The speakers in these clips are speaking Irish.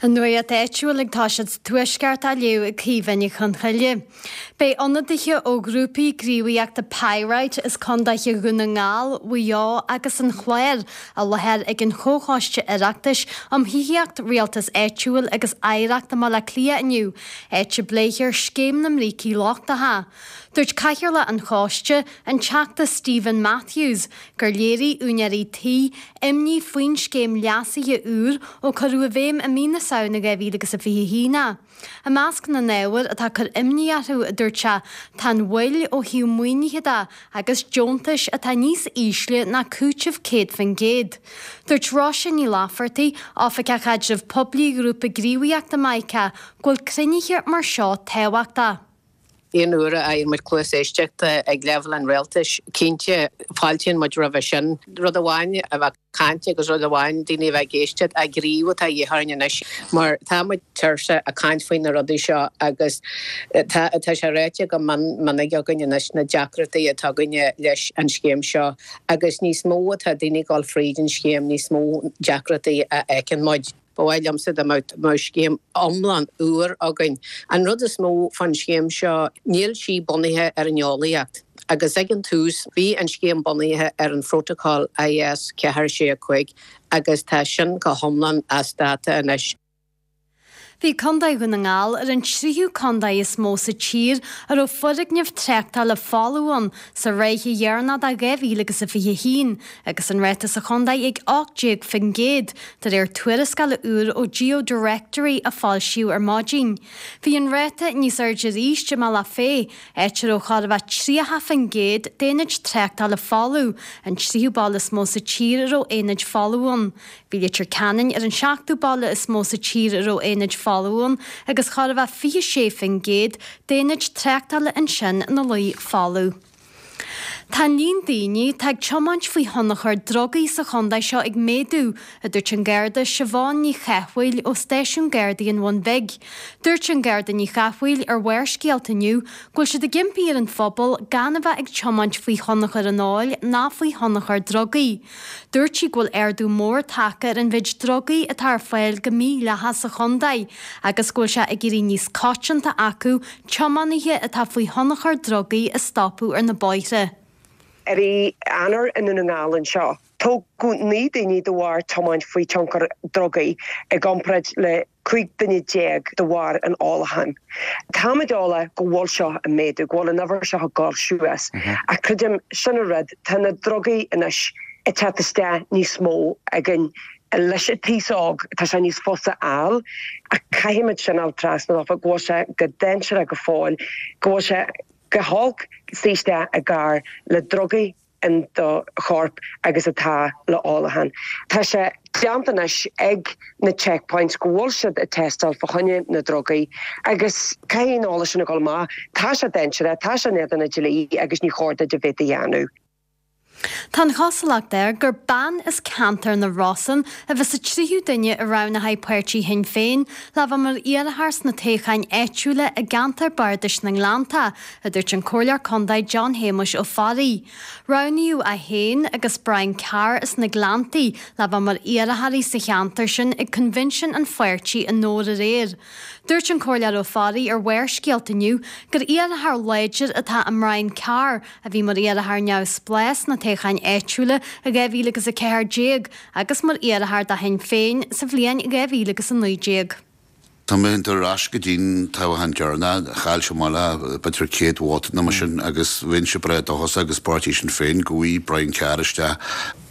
An nuacht áitiúil ag toiseacht sa Tuaisceart á léamh ag Caoimhe Ní Chonchoille. Beidh ionadaithe ó ghrúpaí gníomhaíochta Pyrite as condaetha Dhún na nGall, Mhaigh Eo agus an Chláir i láthair ag an Chomhchoiste Oireachtais um Thithíocht, Rialtas Áitiúil agus Oidhreacht i mBaile Átha Cliath inniu, áit a bpléifear Scéim na mBrící Lochtacha. Dúirt Cathaoirleach an Choiste, an Teachta Steven Matthews, gur léirigh úinéirí tí imní faoin scéim leasaithe úr ó cuireadh i bhfeidhm i mí na Samhna 2021 é. I measc na n-ábhar atá ag cur imní orthu, a dúirt sé, tá an mhoill ó thaobh maoinithe de agus deontais atá níos ísle ná cúiteamh 100%. Dúirt Róise Ní Laifeartaigh, Oifigeach Caidrimh Poiblí Ghrúpa Gníomhaíochta Mica, go bhfuil cruinnithe mar seo tábhachtach. Aon uair a fhaigheann muid cluas éisteachta ag leibhéal an rialtais, cinnte, fáiltíonn muid roimhe sin. Rud amháin a bheith ag caint agus rud amháin daoine a bheith ag éisteacht, ach gníomh atá de dhíth orainn anois mar tá muid tuirseach ag caint faoi na rudaí seo agus tá tá sé ráite go mion minic againn anois na deacrachtaí atá againne leis an scéim seo agus níos mó atá daoine ag dul fríd an scéim níos mó deacrachtaí a fheiceann muid. Ba mhaith liomsa dá mbeadh scéim iomlán úr againn. An rud is mó fán scéim seo, níl sí bunaithe ar an eolaíocht. Agus ag an tús, bhí an scéim bunaithe ar an phrótacal IS 4 6 5 agus tá sin go hiomlán as dáta anois. Bhí Contae Dhún na nGall ar an tríú contae is mó sa tír a raibh foirgneamh tráchtála folamh ann sa ráithe dheireanach de 2021 agus an ráta sa chontae ag 18% de réir tuarascála úr ó GeoDirectory a foilsíodh ar maidin. Bhí an ráta níos airde arís i mBealach Féich, áit a raibh chóir a bheith 30% d'aonaid tráchtála folamh, an tríú baile is mó sa tír a raibh aonaid folamh ann. Bhí Leitir Ceanainn ar an seachtú baile is mó sa tír a raibh aonaid folamh ann agus chóir a bheith 26% d'aonaid tráchtála ansin ina luí folamh. Tá an líon daoine atá ag tiomáint faoi thionchar drugaí sa chontae seo ag méadú, a dúirt an Garda Siobhán Ní Chathmhaoil ó Stáisiún Gardaí an Bhun Bhig. Dúirt an Garda Ní Chathmhaoil ar Bharrscéalta inniu go bhfuil siad ag impí ar an phobal gan a bheith ag tiomáint faoi thionchar an óil ná faoi thionchar drugaí. Dúirt sí go bhfuil ardú mór tagtha ar an mhéid drugaí atá ar fáil go mídhleathach sa chontae agus go bhfuil sé ag éirí níos coitianta acu tiománaithe atá faoi thionchar drugaí a stopadh ar na bóithre. I rith Eanáir i nDún na nGall anseo, tógadh 9 daoine de bharr tiomáint faoi tionchar drugaí i gcomparáid le 15 duine de bharr an ólacháin. Táimid eolach go bhfuil seo ag méadú, go bhfuil an uimhir seo ag dul suas. Ach creidim, sin an rud, tá na drugaí anois ag teacht isteach níos mó againn leis an t-aos óg, tá sé níos fusa a fháil. Ach caithfimid sin a fháil trasna dófa, go bhfuil sé go dainséarach go fóill, go bhfuil sé go holc suí isteach i gcarr le drugaí. in do chorp agus atá le ólachán. Tá sé déanta anois ag na checkpoints go bhfuil siad ag tástáil fá choinne na drugaí agus caithfidh an eolas sin a dhul amach. Tá sé dainséarach, tá sé in éadan an dlí agus ní chóir duit a bheith á dhéanamh. Tá an chosúlacht air gur bean as ceantar na Rosann a bheas sa tríú duine a roghnaíodh páirtí Shinn Féin le bheith mar iarrthóir sna toghcháin áitiúla i gceantar bardais na nGleannta, a dúirt an Comhairleoir Contae John Shéamuis Ó Fearraigh. Roghnaíodh é féin agus Brian Carr as na Gleanntaí le bheith mar iarrthóirí sa cheantar sin ag coinbhinsiún an pháirtí i nDobhar aréir. Dúirt an Comhairleoir Ó Fearraigh ar Bharrscéalta inniu gur iarrthóir láidir atá i mBrian Carr a bhí mar iarrthóir neamhspleách sna toghcháin áitiúla i 2014 agus mar iarrthóir do Shinn Féin sa bhliain 2019. Tá mé ag dul ar ais go dtí'n toghchán deireanach, chaill sé amach le b'fhéidir 100 vóta nó mar sin agus bheinnse breá dóchasach agus páirtí Sinn Féin go bhfaighidh Brian Carr isteach.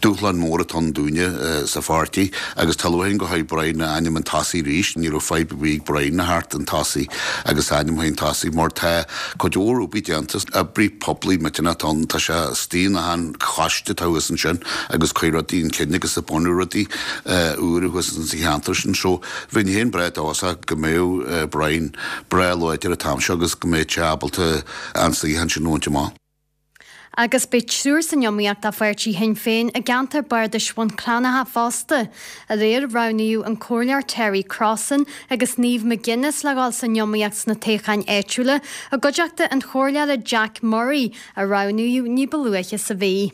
Dúshlán mór atá ann dúinne sa pháirtí agus tá lúcháir orainn go bhfaighidh Brian a ainm chun tosaigh arís. Ní raibh fadhb ar bith ag Brian a theacht chun tosaigh agus a ainm chun tosaigh mar tá cuid mhór obair déanta, oibrí poiblí millteanach atá ann, tá sé istigh in achan choiste atá thuas ansin agus cuir rudaí chun cinn agus ag bunú rudaí úra thuas sa cheantar sin. So, Bheinn féin breá dóchasach go mbeadh Brian breá láidir an t-am seo agus go mbeadh sé ábalta an suíochán sin a bhaint amach. Agus beidh triúr san iomaíocht do pháirtí Shinn Féin i gceantar bardais Bhun Cranncha fosta. Aréir roghnaíodh an Comhairleoir Terry Crossan agus Niamh McGuinness le dhul san iomaíocht sna toghcháin áitiúla i gcuideachta an Chomhairleora Jack Murray a roghnaíodh ní ba luaithe sa mhí.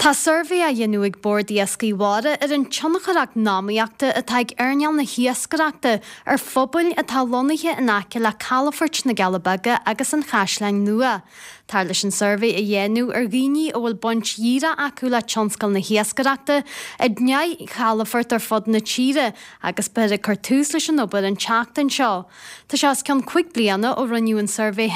Tá suirbhé á dhéanamh ag Bord Iascaigh Mhara ar an tionchar eacnamaíochta atá ag earnáil na hiascaireachta ar phobail atá lonnaithe in aice le calafoirt na gCealla Beaga agus an Chaisleáin Nua. Táthar leis an suirbhé a dhéanamh ar dhaoine a bhfuil baint dhíreach acu le tionscal na hiascaireachta i ndeich gcalafort ar fud na tíre agus beifear ag cur tús leis an obair an tseachtain seo. Tá sé os cionn 5 bliana ó rinneadh an suirbhé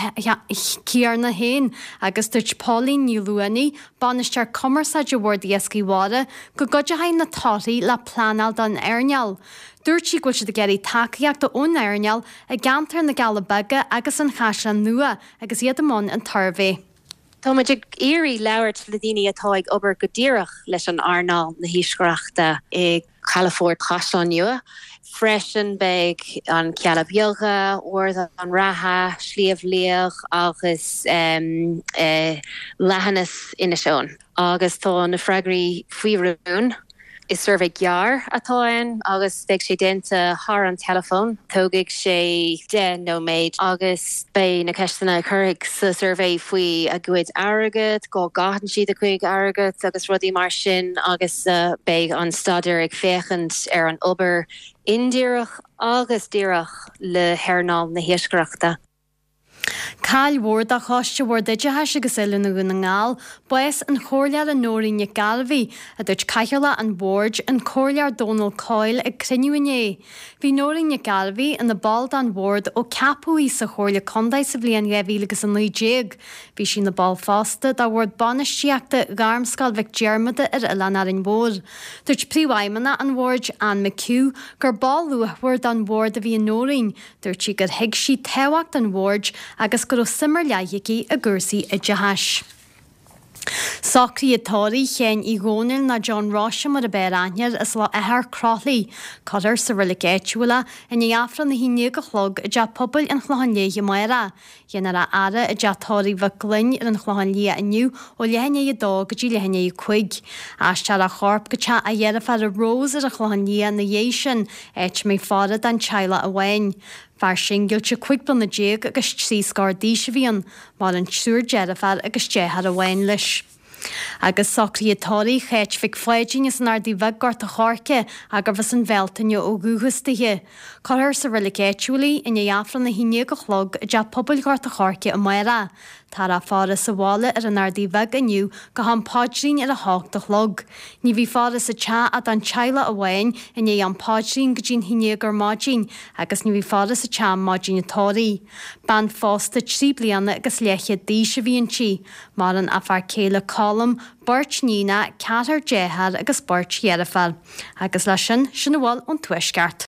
céanna féin agus dúirt Pauline Ní Luanaigh, Bainisteoir Cumarsáide Bhord Iascaigh Mhara, go gcuideoidh na torthaí le pleanáil don earnáil. Dúirt sí go bhfuil siad ag iarraidh tacaíochta ón earnáil i gceantar na gCealla Beaga agus an Chaisleáin Nua agus iad i mbun an tsuirbhé. Tá muid ag iarraidh labhairt le daoine atá ag obair go díreach leis an earnáil na hiascaireachta i gCalafort Chaisleán Nua. Freisin beidh an Cealla Beaga, Ard an Rátha, Sliabh Liag agus Leithinis Inis Eoghain. Agus tá na freagraí faoi rún. Is suirbhé gearr atá ann agus beidh sé déanta thar an teileafón. Tógfaidh sé 10 nóiméad agus beidh na ceisteanna a cuirfidh sa suirbhé faoi a gcuid airgead, cá gcaitheann siad a gcuid airgead agus rudaí mar sin agus beidh an staidéar ag féachaint ar an obair indíreach agus díreach le hearnáil na hiascaireachta. Caill mhór do Choiste Bhord Oideachais agus Oiliúna Dhún na nGall bás an Chomhairleora Nóirín Nic Gairbheith, a dúirt Cathaoirleach an Bhoird, an Comhairleoir Dónal Coyle ag cruinniú inné. Bhí Nóirín Nic Gairbheith ina ball den Bhord ó ceapadh í sa Chomhairle Contae sa bhliain 2019. Bhí sí ina ball fosta de Bhord Bainistíochta Ghairmscoil Mhic Diarmada ar Oileán Árainn Mhór. Dúirt Príomhfheidhmeannach an Bhoird, Anne McHugh, gur ball luachmhar den Bhord a bhí i Nóirín, Dúirt sí gur thuig sí tábhacht an bhoird agus go raibh suim ar leith aici i gcúrsaí oideachais. Socruithe tórraimh Sheáin Uí Dhónaill nó John Roise mar ab fhearr aithne air as Loch Eachach Croithlí. Cuirfear sa reilig áitiúil é i ndiaidh Aifreann a 11 a chlog i dTeach Pobail an Chlocháin Léith amárach. Déanfar a fhaire i dteach tórraimh Mhic Gloinn ar an Chlochán Liath inniu ó leath i ndiaidh 2 go dtí leath i ndiaidh 5. Aistreofar a chorp go teach a dheirféara Rose ar an Chlochán Liath ina dhiaidh sin, áit a mbeidh faire don teaghlach amháin. Fear singillte 15 bliana agus trí scór d'aois a bhí ann. Maireann triúr deirféar agus deartháir amháin leis. Agus socruithe tórraimh Cháit Mhic Pháidín as an Ardaidh Bheag, Gort a' Choirce, gurbh as an Bhealtaine ó dhúchas dithe. Cuirfear sa reilig áitiúil í i ndiaidh Aifreann 11 a chlog i dTeach Pobail Ghort a' Choirce amárach. Táthar á faire sa bhaile ar an Ardaidh Bheag inniu go ham paidrín ar a hocht a chlog. Ní bheidh faire sa teach ach don teaghlach amháin i ndiaidh am paidrín go dtí'n haon déag ar maidin agus ní bheidh faire sa teach maidin an tórraimh. Bean phósta trí bliana agus leathchéad d'aois a bhí inti. Maireann a fear céile Colm, beirt níonacha, ceathrar dearthár agus beirt dheirféar. Agus leis sin, sin a bhfuil ón Tuaisceart.